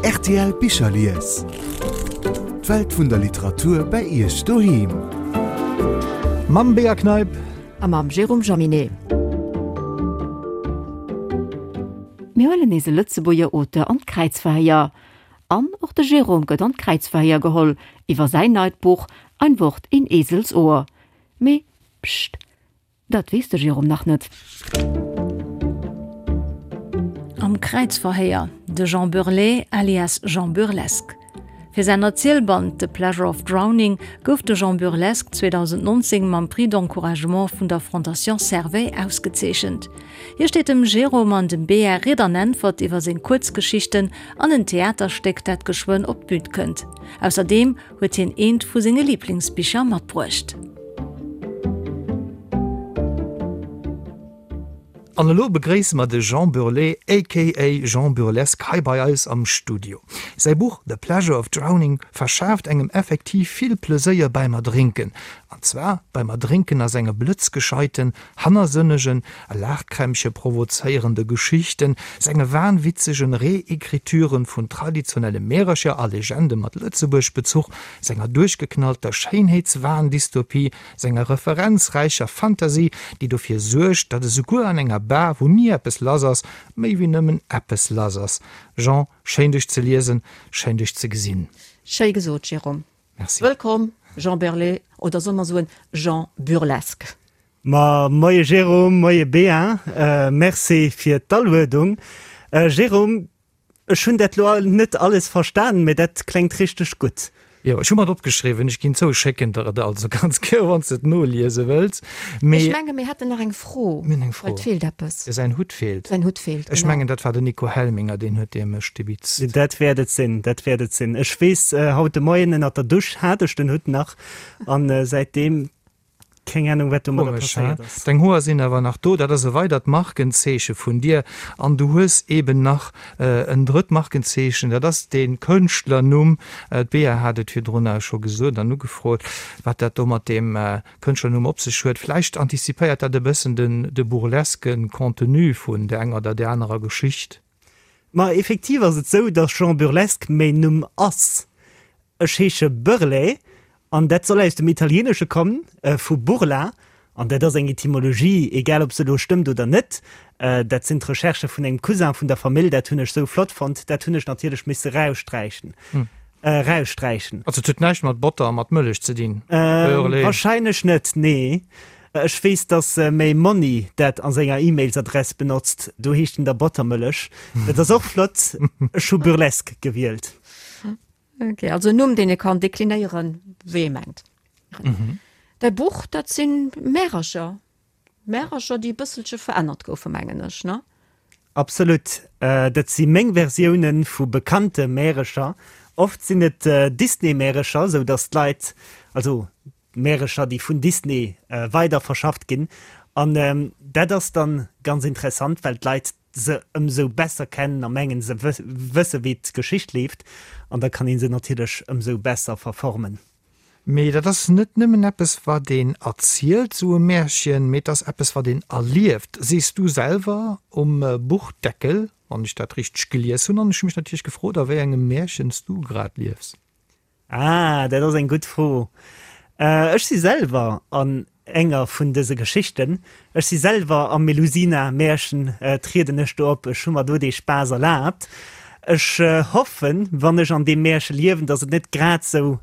Rtl Bicherlies. D'Welt vun der Literatur bei Iech doheem. Mam Bea Kneip. A mam Jérôme Jaminet. Mir huelen nees e Lëtzebuerger Auteur an d'Kräizverhéier. An och de Jérôme gëtt an d'Kräizverhéier geholl iwwer säin neit Buch Ein Wort in Eselsohr. Mee pscht, Dat weess de Jérôme nach net. Am Kräizverhéier, de Jean Burlet alias Jean Burlesque. Fir säin Erzielband The Pleasure of Drowning gouf de Jean Burlesque 2019 mam Prix d'encouragement vun der Fondation Servais ausgezeechent. Hie steet dem Jérôme an dem Bea Ried an Äntwert iwwer seng Kuerzgeschichten an en Theaterstéck, dat geschwënn op d'Bün kënnt. Ausserdeem huet hien eent vu senge Liblingsbicher matbruecht. An elo begréisse mer de Jean Burlet aka Jean Burlesque hei bei eis am Studio. Säi Buch The Pleasure of Drowning verschaaft engem effektiv vill Pleséier beim Erdrénken. An zwar beim Erdrénken a senge blëtzgescheiten, hannersënnegen a Laachkrämpche provozéierende Geschichten, senge wahnwitzegen Reécrituren vun traditionelle Märercher a Legende mat Lëtzebuerg-Bezuch, senger duerchgeknallter Schéinheetswahn-Dystopie, senger referenzräicher Fantasy, déi dofir suergt, datt esouguer an enger Bar, wou ni eppes lass ass, méi wéi nëmmen eppes lass ass. Jean, schéin dech ze liesen, schéin dech ze gesinn. Schéi gesot, Jérôme. Merci. Wëllkomm, Jean Berlet, oder solle mer soen Jean Burlesque? Ma moie Jérôme, moie Bea, merci fir d'Aluedung. Jérôme, Ech hunn dat lo net alles verstanen, mä dat klengt richteg gutt. Jo, ech hu mer et opgeschriwwen. Ech ginn zou, ech schécken der et also ganz gär, wann s de et noliese wëlls. Mee. Ech menge mir hätten nach eng Fro. Mir hunn eng Fro. Well et feelt eppes. Jo, säin Hutt feelt. Säin Hutt feelt, genau. Ech mengen, dat war den Nico Helminger, deen huet dee mech stibitzt. Dat wäert et sinn, dat wäert et sinn. Ech weess, haut de Moien ënnert der Dusch hat ech den Hutt nach an säitdeem Keng Ahnung wat domadder Komesch, he? passéiert ass. Deng Hoer sinn awer nach do, dat ass e weidert Markenzeeche vun dir. An du hues eben nach en drëtt Markenzeechen, dat ass dee Kënschtlernumm. D'Bea hat et virdrun scho gesot an ugefrot, wat dat do mat deem Kënschtlernumm op sech huet. Vläicht antizipéiert dat e bëssen den de burleske Contenu vun der enger oder där anerer Geschicht. Ma effektiv ass et sou, dass Jean Burlesque mäin Numm ass. Ech heesche Burlet an dat soll aus dem Italieenesche kommen, vu burla, an dat ass eng Etymologie, egal ob se elo stëmmt oder net, dat sinn d'Recherchë vun engem Cousin vun der Famill, dat hunn ech sou flott fonnt, dat hunn ech natierlech misse raussträichen, raussträichen. Also et huet näischt mat Botter a mat Mëllech ze dinn, Burlet? Wahrscheinlech net, nee. Ech weess, dass méi Monni dat a senger E-Mails-Adress benotzt, do heescht en da Bottermëllech. Dat ass och flott. Ech hu Burlesque gewielt. Ok, also en Numm, deen ee kann deklinéieren, wéi ee mengt. Däi Buch, dat si Märercher, Märercher, déi e bësselche verännert goufen, mengen ech, ne? Absolut. Dat si meng Versioune vu bekannte Märecher. Oft sinn et Disney-Märecher, sou datt d'Leit, also Märecher, déi vun Disney weider verschafft ginn. An dat ass dann ganz interessant, well d'Leit se ëmsou besser kennen a mengen se wësse wéi d'Geschicht leeft an da kann ee se natierlech ëmsou besser verformen. Mee dat ass net nëmmen eppes wat een erzielt, sou e Märchen, mee et ass eppes wat een erlieft, sees du selwer um Buchdeckel, wann ech dat richteg gelies hunn. An ech hu mech natierlech gefrot, a wéi engem Märchen s du grad liefs. Ah, dat ass eng gutt Fro. Ech si selwer an enger vun dëse Geschichten. Ech si selwer am Melusina-Märchen, trieden ech do op. Ech hu mer do dee Spaass erlaabt. Ech hoffen, wann ech an deem Märche liewen, datt et net grad sou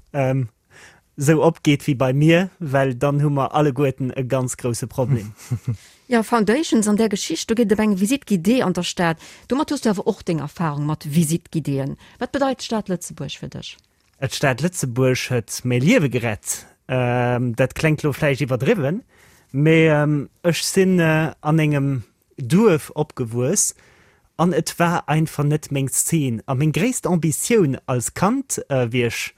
sou opgeet wéi bei mir, well dann hu mer alleguerten e ganz grousse Problem. Jo, Foundations an där Geschicht, do geet et ëm eng Visite guidée an der Stad. Domat hues du awer och deng Erfahrung mat Visite guidéeën. Wat bedeit d'Stad Lëtzebuerg fir dech? D'Stad Lëtzebuerg huet mäi Liewe gerett. Dat klengt lo vläicht iwwerdriwwen, mee ech sinn an engem Duerf opgewuess an et war einfach net meng Szene. A meng gréisst Ambitioun als Kand, wéi ech,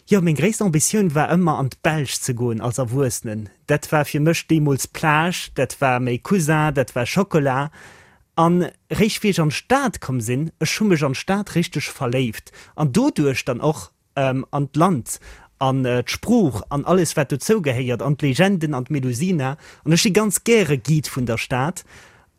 jo meng gréisst Ambitioun war ëmmer an d'Belsch ze goen als Erwuessenen. Dat war fir mech deemools Plage, dat war méi Cousin, dat war Schokola. An réischt wéi ech an d'Stad komm sinn, ech hu mech an d'Stad richteg verléift an doduerch dann och an d'Land an d'Sprooch an alles wat dozou gehéiert an d'Legenden an d'Melusina an ech si ganz gäre Guide vun der Stad.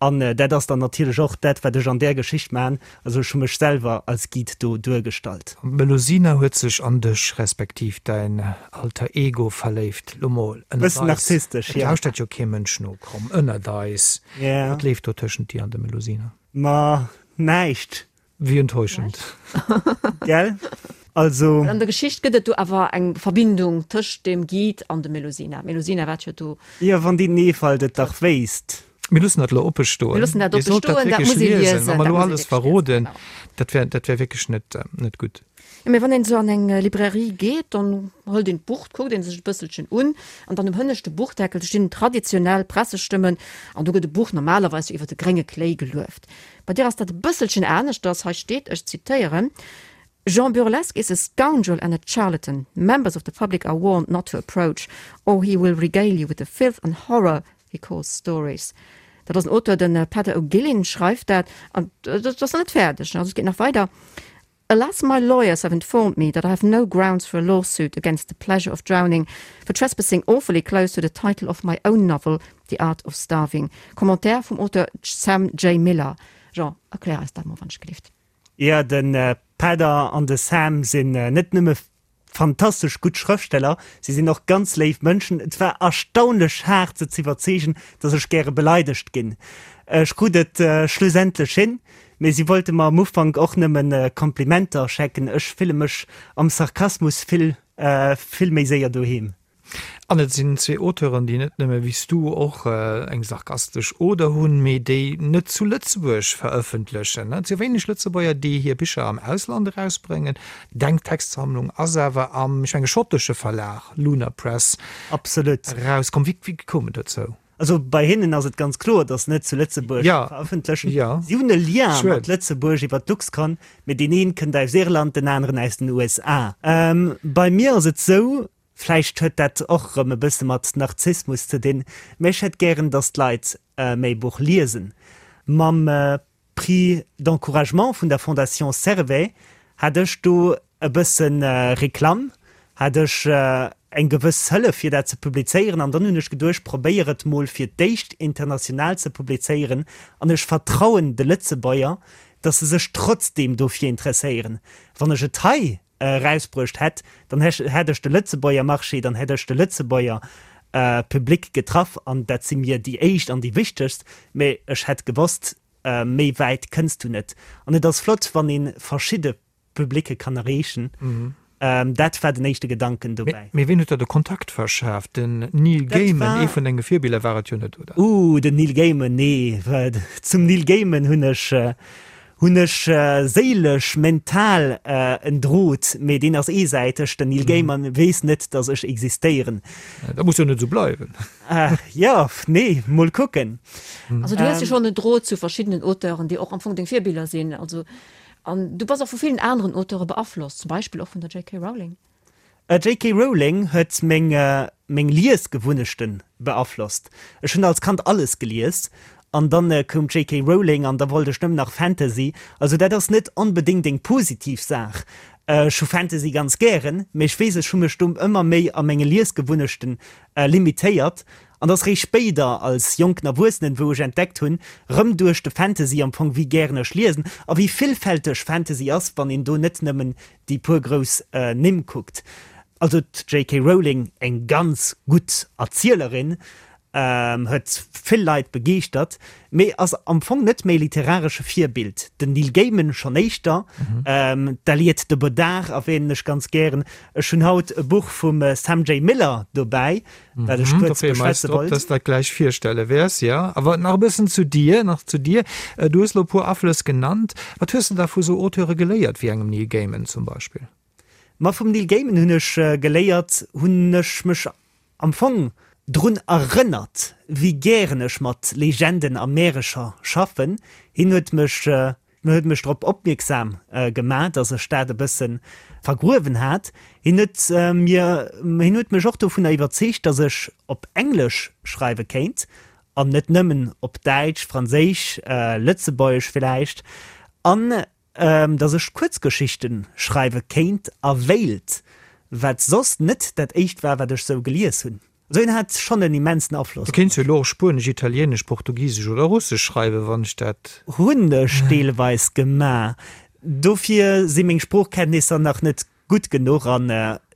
An dat ass dann natierlech och dat, wat ech an där Geschicht maachen. Also ech hu mech selwer als Guide do duergestallt. An d'Melusina huet sech an dech, respektiv däin Alter Ego verléift. Lo mol ënnert Bëssen eis, narzisstesch, et jo. lauschtert jo kee Mënsch no, komm, ënnert eis, Ja. wat leeft do tëschent dir an der Melusina? Ma näischt. Wéi enttäuschend. Gell? Also. An der Geschicht gëtt et do awer eng Verbindung tëscht dem Guide an dem Melusina. D'Melusina waart jo do. Jo, wann déi Neefald et dach wéisst. Mir loossen dat elo oppe stoen. Mir loossen dat Dir oppe sollt dat stoen, dat wierklech muss ee liesen. liesen. Wa mer Dat elo muss ee alles wierklech liesen, verroden, genau. dat wär, dat wär wierklech net, net gutt. Jo, mee wann een esou an eng Librairie geet, dann hëlt een d'Buch, kuckt een sech e bësselchen un an dann um hënneschte Buchdeckel stinn traditionell Pressestëmmen an do gëtt e Buch normalerweis jo iwwer de grénge Kléi gelueft. Bei dir ass dat e bësselchen aneschters. Hei steet, ech zitéieren, Jean Burlesque is a scoundrel and a charlatan. Members of the public are warned not to approach, or he will regale you with the filth and horror he calls stories. Dat ass en Auteur, de Peadar O'Guilin schreift dat. An dat ass nach net fäerdeg, also et geet nach weider. Alas, my lawyers have informed me that I have no grounds for a lawsuit against the pleasure of drowning for trespassing awfully close to the title of my own novel, The Art of Starving. Commentaire vum Auteur Sam J. Miller. Jean, erklär eis dat mol, wann ech gelift. Jo, de Peadar an de Sam sinn net nëmme fantastesch gutt Schrëftsteller, si sinn och ganz léif Mënschen. Et war erstaunlech haart se z'iwwerzeegen, dass ech gäre beleidegt ginn. Ech krut et schlussendlech hin, mee si wollte mer am Ufank och nëmme Komplimenter schecken. Ech fille mech am Sarkasmus vill, vill méi séier doheem. An et sinn zwee Auteuren, déi net nëmme wéi s du och eng sarkastesch Oder hunn, mee déi net zu Lëtzebuerg verëffentlechen. Et si wéineg Lëtzebuerger, déi hir Bicher am Ausland erausbréngen. Deng Textsammlung ass awer am, ech menge schottesche Verlag Lunar Press Absolut. erauskomm. Wéi koum et dozou? Also bei hinnen ass et ganz kloer, datt se net zu Lëtzebuerg verëffentlechen. Si hunn e Lien mat Lëtzebuerg iwwer d'Luxcon, mee deen een kënnt aus Irland, den aneren aus den USA. Bei mir ass et sou, vläicht huet dat och erëm e bësse mat Narzissmus ze dinn, mee ech hätt gären, datt d'Leit mäi Buch liesen. Mam Prix d'encouragement vun der Fondation Servais hat ech do e bësse Reklamm, hat ech eng gewëss Hëllef fir dat ze publizéieren an dann hunn ech geduecht, probéier et mol fir d'éischt international ze publizéieren an ech vertrauen de Lëtzebuerger, datt se sech trotzdeem dofir interesséieren. Wann ech et hei erausbruecht hätt, dann hätt ech de Lëtzebuerger Marché, dann hätt ech de Lëtzebuerger Public getraff an dat si mir déi éischt an déi wichtegst, mä ech hätt gewosst, méi wäit kënns du net. An et ass flott, wann ee verschidde Publicke kann erreechen. Dat war den éischte Gedanken dobäi. Mee ween huet der de Kontakt verschaaft? Den Neil Gaiman, ee vun denge Virbiller war et jo net, oder? Ooh, den Neil Gaiman, nee. Zum Neil Gaiman hunn ech Hunn ech séilesch, mental en Drot, mee deen ass eesäiteg, den Neil Gaiman weess net, dass ech existéieren. Dat muss jo net esou bleiwen. Jo, nee, mol kucken. Also du hues jo schonn en Drot zu verschiddenen Auteuren, déi och am Fong deng Virbiller sinn. Also, an du bass och vu villen aneren Auteure beaflosst, zum Beispill och vun der JK. Rowling. JK. Rowling huet meng meng Liesgewunnechten beaflosst. Ech hunn als Kand alles gelies an dann koum d'JK. Rowling an da wollt ech nëmmen nach Fantasy. Also dat ass net onbedéngt eng positiv Saach. Ech hu Fantasy ganz gären, mee ech weess ech hu mech do ëmmer méi a menge Liesgewunnechten limitéiert an ass réischt spéider als jonken Erwuessenen wou ech entdeckt hunn, rëm duerch de Fantasy am Fong, wéi gären ech liesen a wéi villfälteg Fantasy ass, wann een do net nëmmen déi puer grouss Nimm kuckt. Also d'JK Rowling, eng ganz gutt Erzielerin, huet vill Leit begeeschtert, mee ass am Fong net méi literaresche Virbild. Den Neil Gaiman schonn éischter, d'Aliette de Bodard erwähnen ech ganz gären. Ech hunn haut e Buch vum Sam J. Miller dobäi, wat ech kuerz beschwätze wollt. Dass dat gläich virstelle wäers, jo. Awer nach e bëssen zu dir, nach zu dir. Du hues elo e puer Aflëss genannt. Wat hues de da vu sou Auteure geléiert, wéi engem Neil Gaiman zum Beispill? Ma vum Neil Gaiman hunn ech geléiert, hunn ech mech am Fong drun erënnert, wéi gären ech mat Legenden a Märecher schaffen. Hien huet mech huet mech drop opmierksam gemaach, dass ech dat e bësse vergruewen hat. Hien huet mir, hien huet mech och dovunner iwwerzeegt, dass ech op Englesch schreiwe kéint an net nëmmen op Däitsch, Franséisch, Lëtzebuergesch villäicht, an dass ech Kuerzgeschichte schreiwe kéint a wéilt, wat soss net dat éischt war, wat ech sou gelies hunn. Also hien hat schonn en immensen Afloss Du op kéints jo mech. elo och Spuenesch, Italieenesch, Portugisesch oder Russesch schreiwen, wann ech dat. Hunn ech deelweis gemaach. Dofir si meng Sproochkenntnisser nach net gutt genuch an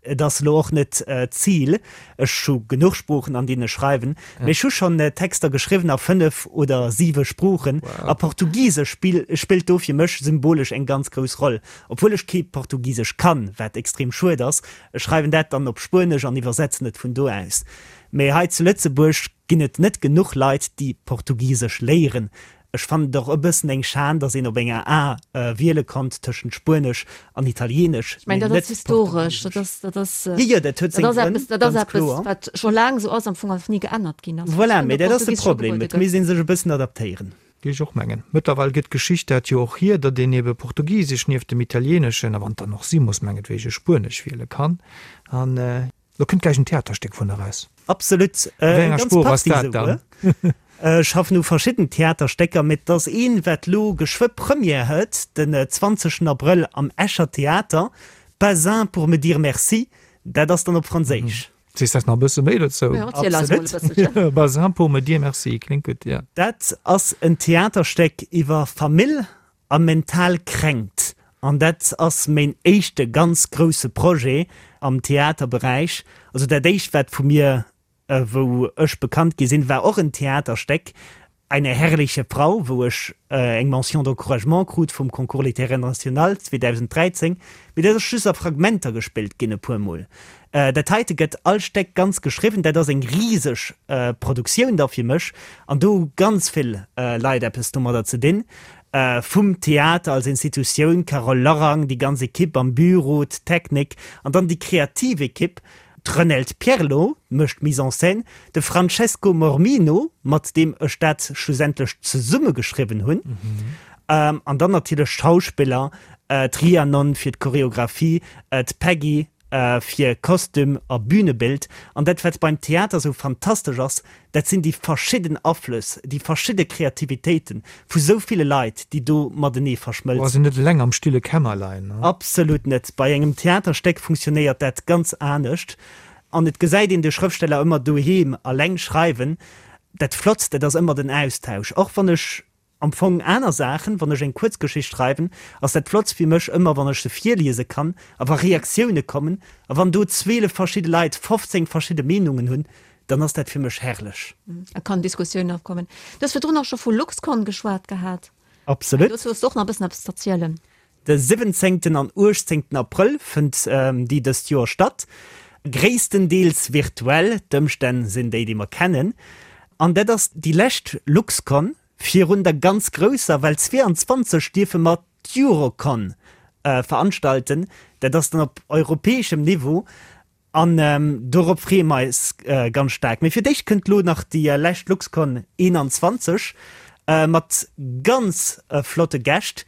et ass elo och net d'Zil. Ech hu genuch Sproochen, an deenen ech schreiwen, mee ech hu schonn Texter geschriwwen a 5 oder 7 Sproochen a Portugisesch spillt do fir mech symbolesch eng ganz grouss Roll, obwuel ech kee Portugisesch kann, wat extrem schued ass. Ech schreiwen dat dann op Spuenesch an iwwersetzen et vun do aus. Mee hei zu Lëtzebuerg ginn et net genuch Leit, déi Portugisesch léieren. Ech fannen et och e bëssen eng Schan, datt een op enger A wiele konnt tëschent Spuenesch an Italienesch, mee net Portugisesch. Jo, jo, dat huet seng Grënn, ganz kloer. Wat scho laang esou ass, am Fong ass ni geännert ginn ass. Voilà, mee dat ass de Problem, et misst ee sech e bëssen adaptéieren. Géif ech och mengen. Mëttlerweil gëtt d'Geschicht dat jo och hier, datt een ebe Portugisesch nieft dem Italieneschen, a wann et dann och si muss, mengetwege Spuenesch wiele kann. An lo kënnt gläich en Theaterstéck vun eraus. Absolut, A wéi enger Sprooch ass dat dann? Ech schaffen u verschidden Theaterstécker, mee et ass een, wat lo geschwë Première huet, den 20 Abrëll am Escher Theater, Pas un pour me dire merci, dat ass dann op Franséisch. Sees eis nach e bësse méi dozou? Jo, erziel eis mol e bësselchen. Pas un pour me dire merci, kléngt gutt, jo. Dat ass en Theaterstéck iwwer Famill a mental Kränkt. An dat ass méin éischte ganz grousse Projet am Theaterberäich. Also dat éischt, wat vu mir, wou ech bekannt gi sinn, war och en Theaterstéck, Eine herrliche Frau, wou ech eng Mention d'encouragement krut vum Concours littéraire national 2013. Mee dat ass just a Fragmenter gespillt ginn e puer Mol. Dat heite gëtt all Stéck ganz geschriwwen. Dat ass eng riseg Produktioun da fir mech an do hu ganz vill Leit eppes domadder ze dinn. Vum Theater als Institutioun, Carole Lorang, déi ganz Ekipp am Büro, d'Technik an dann déi kreativ Ekipp, D'Renelde Pierlot mécht d'Mise en scène, de Francesco Mormino, mat deem ech dat schlussendlech zesummegeschriwwen hunn, an dann natierlech d'Schauspiller, d'Rhiannon fir d'Choreographie, d'Peggy fir Kostüm a Bünebild. An dat, wat beim Theater esou fantastesch ass, Dat sinn déi verschidden Aflëss, déi verschidde Kreativitéite vu sou ville Leit, déi do matenee verschmëlzen. Ass een net eleng am stille Kämmerlein? Absolut net. Bei engem Theaterstéck funktionéiert dat ganz anescht. An et gesäit een de Schrëftsteller ëmmer doheem eleng schreiwen. Dat Flottst, dat ass ëmmer den Austausch. Och wann ech Am Fong aner Saachen, wann ech eng Kuerzgeschicht schreiwen, ass dat Flottst fir mech ëmmer, wann ech se virliese kann a wa Reaktioune kommen a wann do 12 verschidde Leit 15 verschidde Meenungen hunn, dann ass dat fir mech herrlech. Et kann Diskussioun opkommen. Du hues virdrun och scho vu Luxcon geschwat gehat. Absolut. Dozou hues du och nach e bëssen eppes z'erzielen. De 17. an 18. Abrëll fënnt déi dëst Joer statt, gréisstendeels virtuell, d'Ëmstänn sinn déi, déi mer kennen. An dat ass déi lescht Luxcon virun der ganz grousser, well 22 dierfe mer d'Eurocon veranstalten, dat ass dann op europäeschem Niveau. An dorop freeë mer eis ganz staark. Mee fir d'éischt kënnt lo nach déi lescht Luxcon 21 mat ganz flotte Gäscht,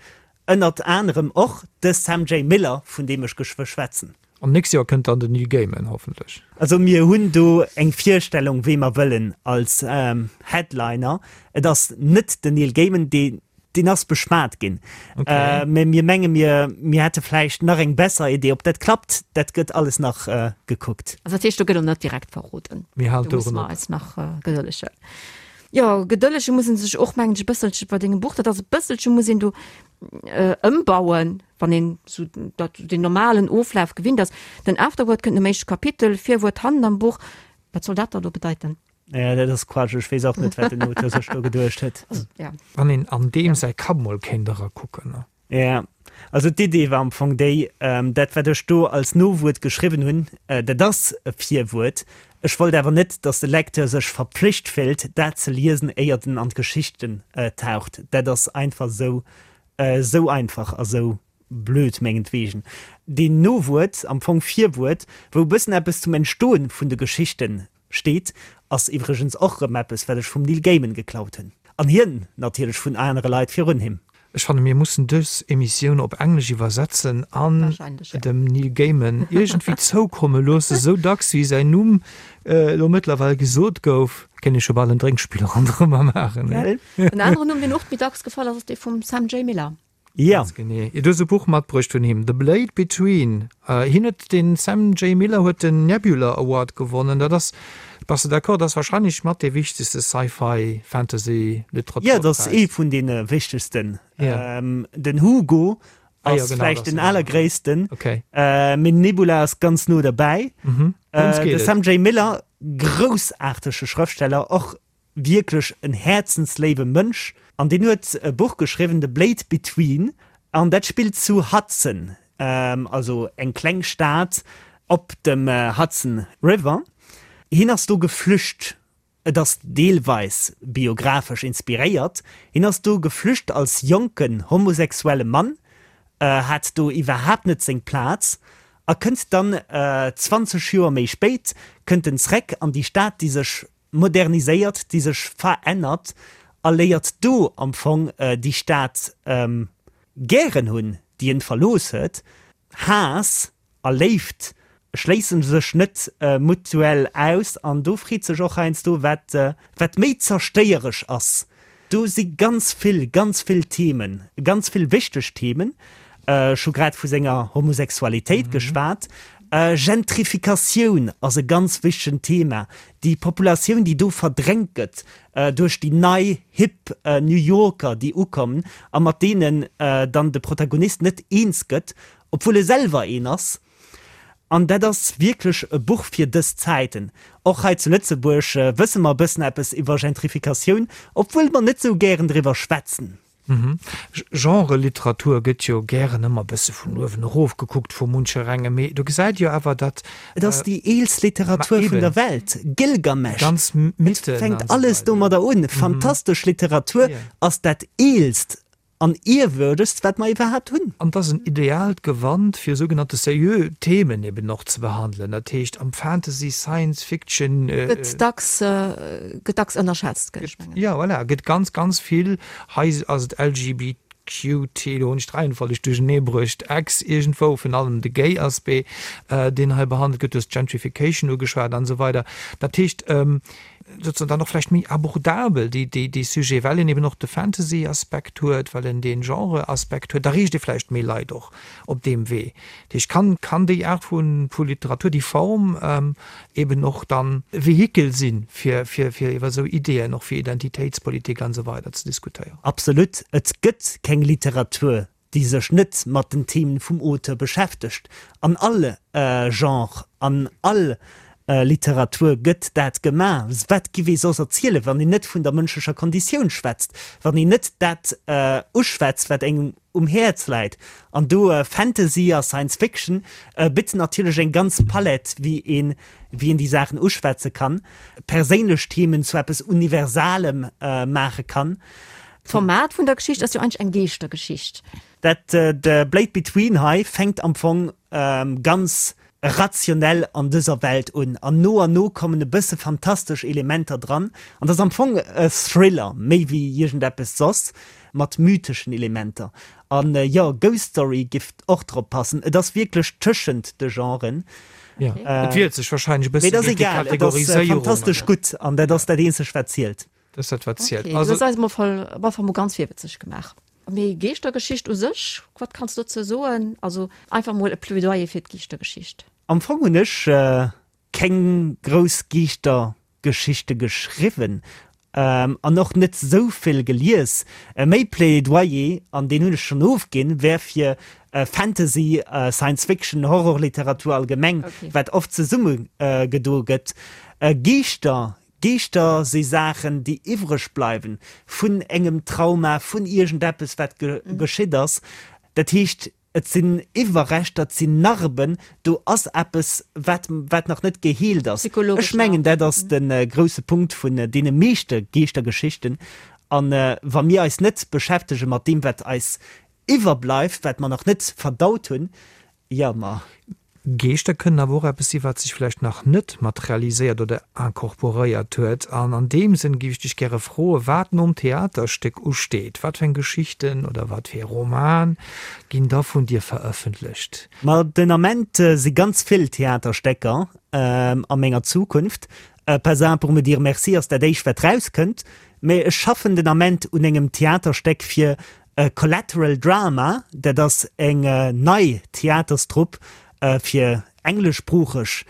ënnert anerem och de Sam Jay Miller, vun deem ech geschwë schwätzen. An nächst Joer kënnt dann den Neil Gaiman hoffentlech. Also mir hunn do eng Virstellung, wee mer wëllen als Headliner. Et ass net den Neil Gaiman, dee Deen ass beschwat ginn. Okay. Mä mir menge mir, mir hätte vläicht nach eng besser Idee. Ob dat klappt, dat gëtt alles nach gekuckt. Also dat heescht, do gëtt och net direkt verroden. Mir halen Do musse d'Oueren mer eis nach gedëllegen. Jo, gedëllege muss een sech och, mengen ech, e bësselche bei dengem Buch. Dat ass e bësselche muss een do ëmbauen, wann een esou dat, deen normalen Oflaf gewinnt ass. Den Afterword kënnt nom éischte Kapitel, Virwuert hannen am Buch. Wat soll dat da lo bedeiten? Ja, dat ass Quatsch. Ech weess och net, wat den Auteur sech do geduecht huet. Ja. Wann een an deem säi Kapp mol kéint erakucken, ne? Ja, also d'Idee war am Fong déi, dat wat ech do als Nowuert geschriwwen hunn, dat ass e Virwuert. Ech wollt awer net, datt de Lecteur sech verpflicht fillt, dat ze liesen, éiert en an d'Geschichten taucht. Dat ass einfach esou, esou einfach a sou blöd mengetwegen. Deen Nowuert, am Fong Virwuert, wou e bëssen eppes zum Entstoen vun de Geschichten Steet, ass iwwregens och rëm eppes wat ech vum Neil Gaiman geklaut hunn. An hien natierlech vun anere Leit virun him. Ech fanne mir mussen dës Emissioun op Englesch iwwersetzen an dem Neil Gaiman iergendwéi zoukomme loossen. Esou dacks wéi säin Numm elo mëttlerweil gesot gouf, kéint ee scho bal en Drénkspill ronderëmmer maachen. En aneren Numm, deen och méi dacks gefall ass, ass dee vum Sam J. Miller. Ja. Ganz genee. Du hues e Buch matbruecht vun him, The Blade Between. Hien huet, den Sam J. Miller huet den Nebula Award gewonnen. Dat ass. Bass de d'accord, dat ass wahrscheinlech mat dee wichtegste Sci-Fi, Fantasy, Literaturpräis? Jo, dat ass ee vun deene wichtegsten. Den Hugo ass vläicht den allergréissten, mee Nebula ass ganz no derbäi. De Sam J. Miller, groussaartege Schrëftsteller, och wierklech en häerzensléiwe Mënsch an deen huet e Buch geschriwwen, The Blade Between, an dat spillt zu Hudson, also eng kleng Stad op dem Hudson River. Hien ass do geflücht, et ass deelweis biographesch inspiréiert, hien ass do geflücht als jonken homosexuelle Mann, hat do iwwerhaapt net seng Plaz a kënnt dann 20 Joer méi spéit kënnt en zréck an déi Stad, déi sech moderniséiert, déi sech verännert a léiert do am Fong déi Stad gären hunn, déi en verlooss huet. Haass a Léift schléisse sech net mutuell aus an do freet sech och heiansdo, wat wat méi zerstéieresch ass. Do si ganz vill, ganz vill Themen, ganz vill wichteg Themen. Ech hu grad vu senger Homosexualitéit geschwat. Gentrifikatioun ass e ganz wichtegen Thema. Déi Populatioun, déi do verdrängt gëtt duerch déi nei, hip New Yorker, déi ukommen a mat deenen dann de Protagonist net eens gëtt, obwuel e selwer een ass. An dat ass wierklech e Buch fir dës Zäiten. Och hei zu Lëtzebuerg wësse mer e bëssen eppes iwwer Gentrifikatioun, obwuel mer net sou gären driwwer schwätzen. Genre-Literatur gëtt jo gären ëmmer e bësse vun uewen erof gekuckt vu muncherengem, mee do gesäit jo awer, datt. Et ass déi eelst Literatur vun der Welt, Gilgamesch, et fänkt alles domadder un. Fantastesch Literatur ass dat eelst An ierwürdegst, wat mer iwwerhaapt hunn. An et ass en ideaalt Gewand, fir sougenannte seriö Themen eben och ze behandelen. Dat heescht, am Fantasy, Science Fiction. Gëtt dacks, gëtt dacks ënnerschätzt, géif ech mengen. Jo, voilà, gëtt ganz, ganz vill. Hei ass et LGBQT, do hunn ech d'Reihenfolleg duerchenee bruecht, X iergendwou, virun allem de Gay-Aspect, deen hei behandelt gëtt. Du hues d'Gentrification ugeschwat an esou weider. Dat heescht, sozusagen dann och vläicht méi abordabel, déi, déi, dee Sujet, well en eben och de Fantasy-Aspekt huet, well en dee Genre-Aspekt huet, da reecht e vläicht méi Leit och op deem Wee. Dat heescht, kann, kann déi Aart vu, vu Literatur, déi Form eben och dann e Vehikel sinn, fir, fir, fir iwwer esou Ideeën, och fir Identitéitspolitik an esou weider ze diskutéieren. Absolut. Et gëtt keng Literatur, déi sech net mat den Themen vum Auteur beschäftegt. An all Genre, an all Literatur gëtt dat gemaach. Wat giff ee soss erzielen, wann een net vun der mënschlecher Konditioun schwätzt, wann een net dat uschwätzt, wat engem um Häerz läit? An do Fantasy a Science Fiction bitt natierlech eng ganz Palette, wéi een, wéi een déi Saachen uschwätze kann, perséinlech Themen zu eppes Universalem maache kann. D'Format vun der Geschicht ass jo eigentlech eng Geeschtergeschicht. Dat The Blade Between hei fänkt am Fong ganz rationell an dëser Welt un an no an no kommen e bësse fantastesch Elementer dran an dat ass am Fong e Thriller méi wéi iergendeppes soss mat mytheschen Elementer. An jo, Ghost Story giff och drop passen. Et ass wierklech tëschent de Genren. Jo, et wiert sech wahrscheinlech e bësse géint déi Kategoriséierung. Mee et ass egal, et ass fantastesch gutt an dat ass dat eenzegt wat zielt. Dat ass dat, wat zielt. Okay, du hues eis emol am Ufank mol ganz virwëtzeg gemaach. Mee Geeschtergeschicht u sech, wat kanns du dozou soen? Also einfach mol e Plaidoyer fir d'Geeschtergeschicht. Am Fong hunn ech keng grouss Geeschtergeschichte geschriwwen an och net esou vill gelies. Méi Plaidoyer, an deen hunn ech schonn ofginn, wär fir Fantasy, Science Fiction, Horrorliteratur allgemeng, wat oft zesumme gedo gëtt. Geeschter Geeschter si Saachen, déi iwwreg bleiwen vun engem Trauma, vun iergendeppes, wat geschitt ass. Dat heescht, et sinn Iwwerreschter, et sinn Narben, do ass eppes, wat, wat nach net geheelt ass. Ech mengen, dat ass de grousse Punkt vun deene meeschte Geeschtergeschichten. A wa mir eis net beschäftege mat deem, wat eis iwwerbleift, wat mer nach net verdaut hunn, jo, ma. Geeschter kënnen awer och eppes si wat sech vläicht nach net materialiséiert oder incorporéiert huet. An an deem Sënn géif ech dech gäre froen, wat nom Theaterstéck usteet. Wat fir eng Geschichten oder wat fir ee Roman ginn da vun dir verëffentlecht? Ma den Ament si ganz vill Theaterstécker a menger Zukunft. Pas un pour me dire merci ass dat éischt wat rauskënnt, mä ech schaffen den Ament un engem Theaterstéck fir Collateral Drama, dat ass eng nei Theaterstrupp fir engleschsproocheg,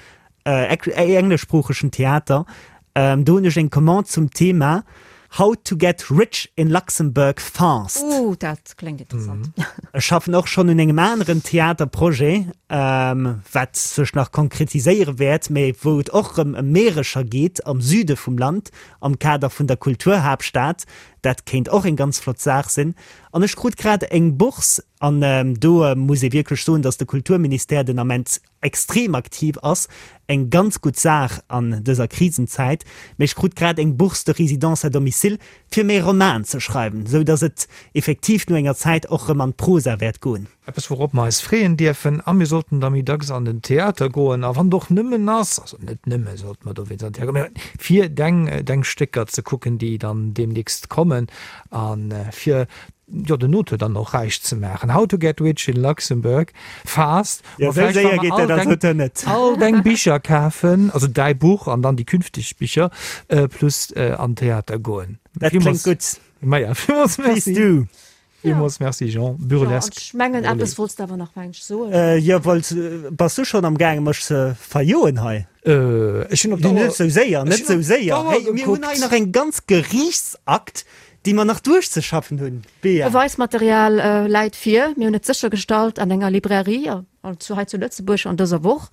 engleschsproochegen Theater. Do hunn ech eng Commande zum Thema How to get rich in Luxembourg fast. Ooh, dat kléngt interessant. Ech schaffen och schonn un engem aneren Theaterprojet, wat sech nach konkretiséiere wäert, mä wou et och erëm ëm Meerescher geet am Süde vum Land am Kader vun der Kulturhaaptstad. Dat kéint och eng ganz flott Saach sinn. An ech krut grad eng Bourse, an do muss ee wierklech soen, datt de Kulturministère den Ament extrem aktiv ass, eng ganz gutt Saach an dëser Krisenzäit, mee ech krut grad eng Bourse de résidence à domicile fir mäi Roman ze schreiwen, sou datt et effektiv no enger Zäit och rëm an d'Prosa wäert goen. Eppes wourop mer eis freeën dierfen, a mir sollten da méi dacks an den Theater goen, a wann et och nëmmen ass, also net nëmme sollte mer dowéinst an den Theater goen, mee fir deng deng Stécker ze kucken, déi dann deemnächst kommen, a fir jo den Auteur dann och räich ze maachen. How to get rich in Luxembourg fast. Jo, esou séier geet dat als Auteur net. All deng Bicher kafen, also däi Buch an dann déi künfteg Bicher, plus an Theater goen. Dat kléngt gutt. Maja, villmools merci. Please do. Villmools merci Jean. Burlesque. Ech mengen eppes wollts de awer nach mensch soen. Jo, wollt, bass du schonn am gaange mech ze verjoen hei? Ech hunn op d'Auer. Net esou séier, net esou séier. Hey, mir hunn hei nach eng ganz Geriichtsakt, déi mer nach duerchzeschaffen hunn. Bea. Beweismaterial läit vir. Mir hunn et séchergestallt an enger Librairie zu hei zu Lëtzebuerg an dëser Woch.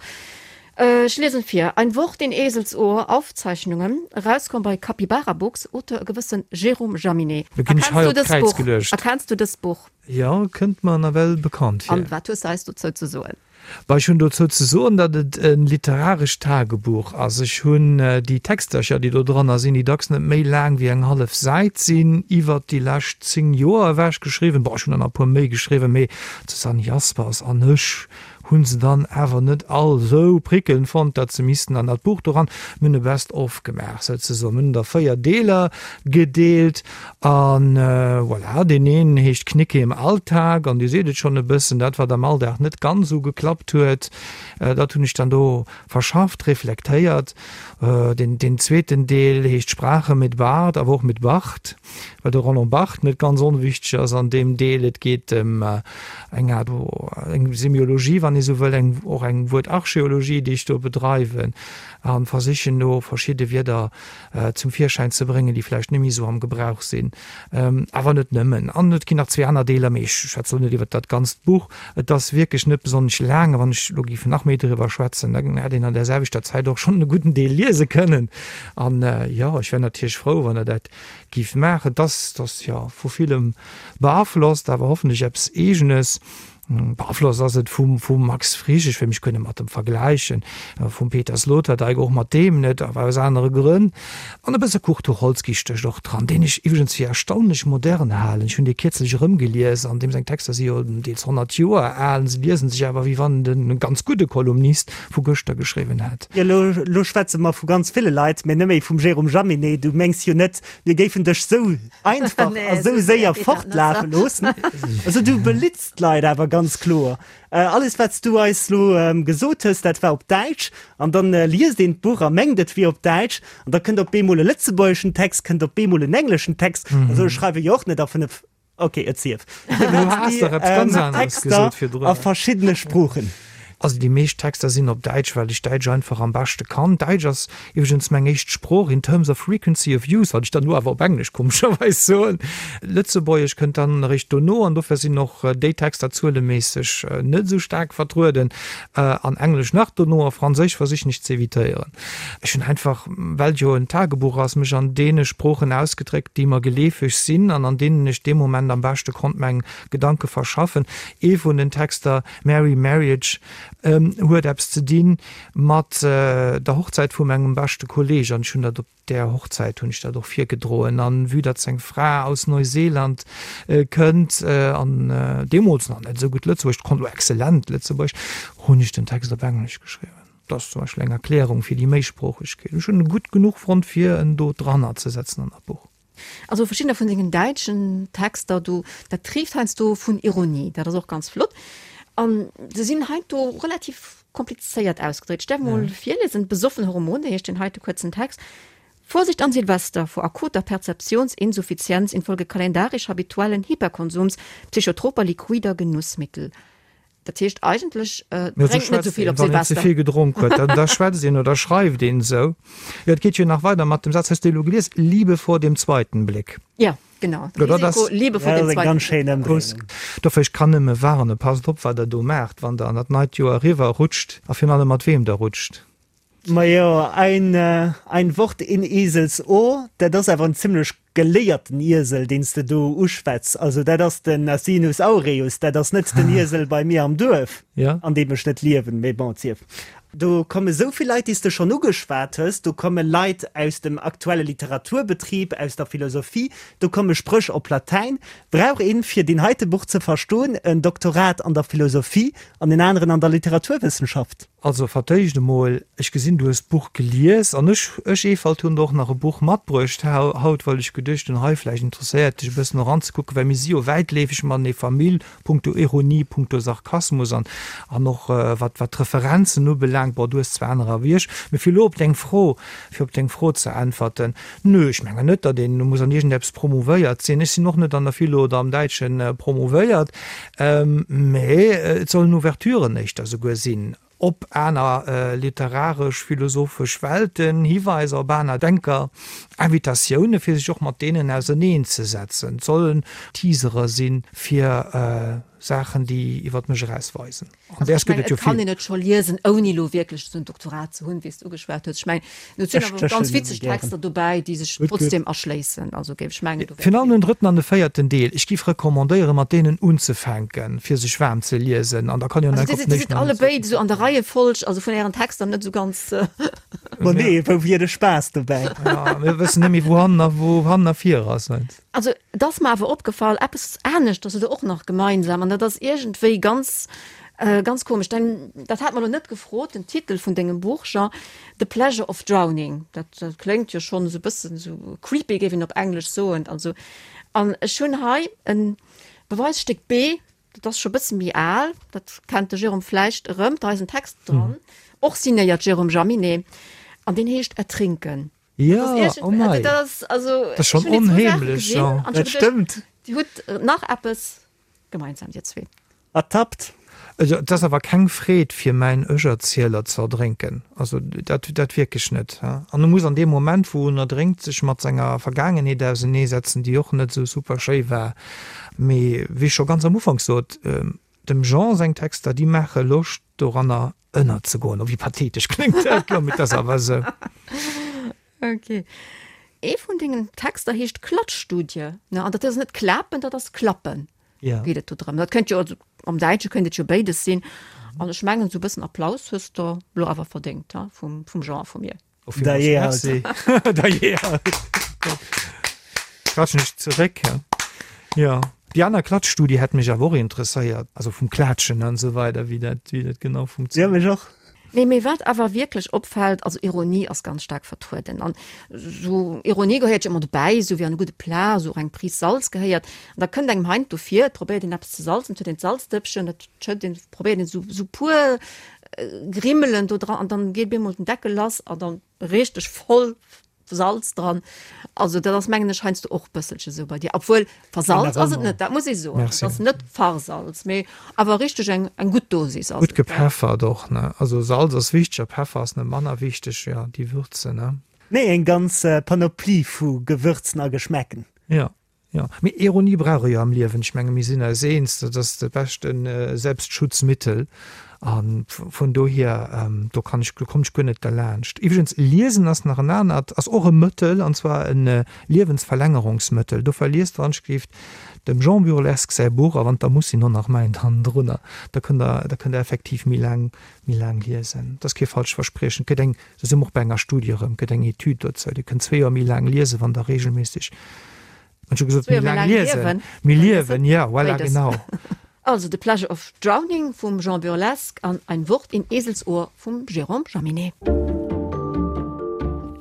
Ech liesen vir, Ein Wort in Eselsohr, Aufzeichnungen, erauskomm bei Capybara Books, Auteur e gewëssen Jérôme Jaminet. Do ginn ech hei op d'Kräiz geluecht. Erkenns du dëst Buch? Jo, kënnt mer nawell bekannt vir. An wat hues de eis dozou ze soen? Bah, ech hunn dozou ze soen, datt et e literarescht Tagebuch ass. Ech hunn déi Textercher, déi do dranner sinn, déi dacks net méi laang wéi eng hallef Säit sinn, iwwert déi lescht 10 Joer ewech geschriwwen. Bon, ech hunn der nach e puer méi geschriwwen, mee d'Susanne Jaspers an ech hu se dann awer net all esou prickelnd fonnt, datt se missten an dat Buch doran. Mir hunn e Best of gemaach souzesoen. Mir hunn der 4 Deeler gedeelt An voilà, deen een heescht Knicke im Alltag an Dir seet et schonn e bëssen, dat wat am Alldag net ganz esou geklappt huet, dat hunn ech dann do verschafft, reflektéiert. Deen, deen zweeten Deel heescht Sprache mit Bart, awer och mit Barth, well de Roland Barthes net ganz onwichteg ass an deem Deel. Et geet ëm eng Aart, eng Semiologie, wann ee sou wëll, eng, och eng Wuertarcheologie, déi ech do bedreiwen a versichen do verschidde Wierder zum Virschäin ze bréngen, déi vläicht net méi esou am Gebrauch sinn. Awer net nëmmen. An et ginn nach zwee aner Deeler, mee ech schwätze elo net iwwert dat ganzt Buch. Et ass wierklech net besonnesch laang, a wann ech elo géif nach méi driwwer schwätzen, da hätt een an där selwechter Zäit och schonn e gudden Deel liese kënnen. An jo, ech wär natierlech frou, wann Der dat géift maachen. Et ass, et ass jo vu villem beaflosst, awer hoffentlech eppes Eegenes. Beaflosst ass et vum vum Max Frisch, ech wëll mech guer net mat em vergläichen, vum Peter Sloterdijk, och mat deem net, awer aus anere Grënn. An e bësse Kurt Tucholsky stécht och dran, deen ech iwwregens fir erstaunlech modern halen. Ech hunn dee kierzlech erëmgelies an deem seng Texter si jo deels 100 Joer al, se liesen sech awer wéi wann en e ganz gudde Kolumnist vu gëschter geschriwwen hätt. Jo, elo, elo schwätze mer vu ganz ville Leit, mä net méi vum Jérôme Jaminet. Du mengs jo net, mir géifen dech sou einfach a sou séier fortlafe loossen. Also du belitz d'Leit awer ganz kloer. Alles wat s du eis lo gesot hues, dat war op Däitsch an dann liest een d'Buch a mengt et wier op Däitsch an da kënnt op eemol e lëtzebuergeschen Text, kënnt op eemol en engleschen Text. Also ech schreiwe jo och net a 5, ok et sief Texter a verschiddene Sproochen. Also déi meescht Texter sinn op Däitsch, well ech Däitsch einfach am beschte kann. Däitsch ass iwwregens meng éischt Sprooch in terms of frequency of use, wat ech dann elo awer op Englesch komescherweis soen. Lëtzebuergesch kënnt dann eréischt dono an dofir sinn och déi Texter zueleméisseg net esou staark vertrueden. An Englesch nach dono a Franséisch versichen ech ze evitéieren. Ech hunn einfach, well et jo en Tagebuch ass, mech an deene Sproochen ausgedréckt, déi mer geleefeg sinn an an deenen ech dee Moment am beschte konnt meng Gedanke verschaffen. Ee vun den Texter, Merry Marriage huet eppes ze dinn mat der Hochzäit vu mengem beschte Kolleg an ech hunn dat op där Hochzäit hunn ech dat och virgedroen an vue datt seng Fra aus Neuseeland kënnt an deemools nach net esou gutt Lëtzebuergesch konnt, elo exzellent Lëtzebuergesch, hunn ech den Text op Englesch geschriwwen. Dat ass zum Beispill eng Erklärung fir déi Méisproochegkeet. Ech hunn e gutt genuch fonnt fir en do dranner ze setzen an dat Buch. Also verschiddener vun sengen däitschen Texter do, dat triift heiansdo vun Ironie, dat ass och ganz flott. An se sinn heiansdo relativ komplizéiert ausgedréckt. Ech däerf mol virliesen, Besoffen Hormone heescht deen heite kuerzen Text. Vorsicht an Silvester vor akuter Perzeptionsinsuffizienz infolge kalendarisch habituellen Hyperkonsums psychotroper liquider Genussmittel. Dat heescht eigentlech, drénkt net esou vill op Silvester. Wann een ze vill gedronk huet, dann da schwätzt een oder schreift een esou. Jo, et geet jo nach weider mat dem Saz, hues de elo gelies, Liebe vor dem zweiten Blick. Jo, genau. Risiko, Liebe vor dem zweiten Blick. Dofir, ech kann nëmme warnen, passt op, wat der do maacht, wann der an dat neit Joer eriwwer rutscht a virun allem mat weem der rutscht. Majo, ein, ein Wort in Esels Ohr, dat ass awer en zimlech geléierten Iesel, deen s de do uschwätz. Also dat ass den Asinus aureus, dat ass net den Iesel bei mir am Duerf, an deem ech net liewen, mee bon, et sief. Do komme sou vill Leit, déi s de schonn ugeschwat hues, do komme Leit aus dem aktuelle Literaturbetrib, aus der Philosophie, do komme Spréch op Latäin. Brauch een, fir deen heite Buch ze verstoen, en Doktorat an der Philosophie an en aneren an der Literaturwëssenschaft? Also fir d'éischt emol, ech gesinn du hues d'Buch gelies an ech, ech Ewald, hunn der och nach e Buch matbruecht haut, well ech geduecht hunn, hei vläicht interesséiert dech e bëssen eranzekucken, well mir si jo wäitleefeg matenee Famill, punkto Ironie, punkto Sarkasmus an an och wat wat d'Referenzen ubelaangt. Bon, du hues zwar anerer wéi ech, mee fir elo op deng Fro, fir op deng Fro ze äntwerten, Nö, ech mengen net, datt een muss an iergendeppes promouvéiert sinn. Ech sinn och net an der Philo oder am Däitsche promouvéiert. Mä et sollen Ouverturen éischter souguer sinn op aner literaresch, philosophesch Welten, Hiweiser op aner Denker, Invitatioune fir sech och mat deenen auserneen ze setzen. Et sollen Teasere si fir Saachen, déi iwwer mech eraus weisen. An däers gëtt et jo vill. Et kann een et scho liesen, ouni elo wierklech esou en Doktorat ze hunn, wéi s de ugeschwat hues. Ech mengen, do sinn awer och ganz witzeg Texter dobäi, déi sech trotzdem erschléissen. Also géif ech mengen, do wäert. Virun allem den drëtten an de véierten Deel. Ech géif recommandéieren, mat deenen unzefänken, fir sech waarm ze liesen. An da kann een jo nach op den éischten. Also dir sidd allebéid esou an der Reiefolg, also vun ären Texter net esou ganz. Ma nee, wou wier de Spaass dobäi? Jo, mir wëssen net méi, wou hannen a wou hannen a vir ass. Also, et ass mer awer opgefall, eppes aneschters hutt Der och nach gemeinsam, an dat ass iergendwéi ganz, ganz komesch. Dein, dat hat mer elo net gefrot, den Titel vun dengem Buch, Jean, The Pleasure of Drowning, dat, dat kléngt jo schonn esou e bëssen esou creepy, géif een op Englesch soen. Also, an ech hunn hei e Beweisstéck B, dat ass scho e bësse méi al, dat kennt de Jérôme vläicht erëm, da ass en Text dran, och signéiert Jérôme Jaminet, an deen heescht Ertrinken. Ja, oh mei. Dat ass also, Dat ass schonn onheemlech, jo. Dat stëmmt. Dir hutt nach eppes gemeinsam, dir zwee. Ertappt. Also, et ass awer keng Freed fir mäin Ech-Erzieler ze erdrénken. Also, dat, dat wierklech net. An e muss an deem Moment, wou en erdrénkt, sech mat senger Vergaangenheet auseneesetzen, déi och net esou super schéi war. Mee wéi ech scho ganz am Ufank sot, Dem Jean seng Texter, déi maache Loscht doranner ënnerzegoen. Oh, wéi pathetesch kléngt dat elo, mee et ass awer esou. Ok. Ee vun dengen Texter heescht Klatschstudie, ne? An dat ass net klapen, dat ass klappen. Ja. Geet et do drëm. Dat kënnt jo, also am Däitsche kënnt et jo béides sinn. An ech mengen, esou e bëssen Applaus hues de elo awer verdéngt, ha, vum, vum Jean a vu mir. Oh, villmools Merci. Dajee halt. Klatschen ech zeréck, ja. Ja. Déi aner Klatschstudie hätt mech awer och interesséiert, also vum Klaatschen an esou weider, wéi dat, wéi dat genau Ja, funktioniert. mech och. Nee, mee wat awer wierklech opfält, also Ironie ass ganz staark vertrueden. An esou Ironie gehéiert jo ëmmer dobäi, esou wéi an e gudde Plat esou och eng Prise Salz gehéiert. An da kënnt engem heiansdo vir, et probéiert een eppes ze salzen, et huet een d'Salzdëppchen, et schëtt een, probéiert een esou, esou puer Grimmelen do dran an dann geet bemol den Deckel lass an dann richteg voll Salz dran. Also dat ass mengen ech heiansdo och bësselche sou bei dir. Obwuel versalz ass et net, dat muss ee soen. Merci. Et ass net versalz, mee awer richteg eng eng gutt Dosis ass Gutt et. gepeffert och, ne? Also Salz ass wichteg a Peffer ass net manner wichteg, jo, déi Würze, ne? Nee, eng ganz Panoplie vu Gewürzen a Geschmäcken. Jo. Jo, mee Ironie brauch e jo am Liewen. Ech menge mir sinn eis eens, dat ass de beschte Selbstschutzmittel. A vun dohier, do kann ech, do kommen ech guer net derlaanscht. Iwwregens, liesen ass nach en anert, ass och e Mëttel, an zwar e Liewensverlängerungsmëttel. Dofir liest wann ech géif dem Jean Burlesque säi Buch, a wann et da muss sinn, och nach mäint hannendrunner, da kënnt der, da kënnt der effektiv méi laang, méi laang liesen. Dat ass kee falscht Verspriechen. Et gëtt eng, do si mer och bei enger Studie erëm, gëtt eng Etüd dozou. Dir kënnt zwee Joer méi laang liesen, wann Der reegelméisseg, ech hu gesot, méi laang liesen, méi liewen, jo, voilà, genau. Also The Pleasure of Drowning vum Jean Burlesque an Ein Wort in Eselsohr vum Jérôme Jaminet.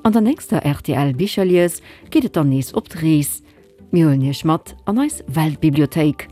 An der nächster rtl Bicherlies geet et dann nees op d'Rees. Mir huelen iech mat an eis Weltbibliothéik.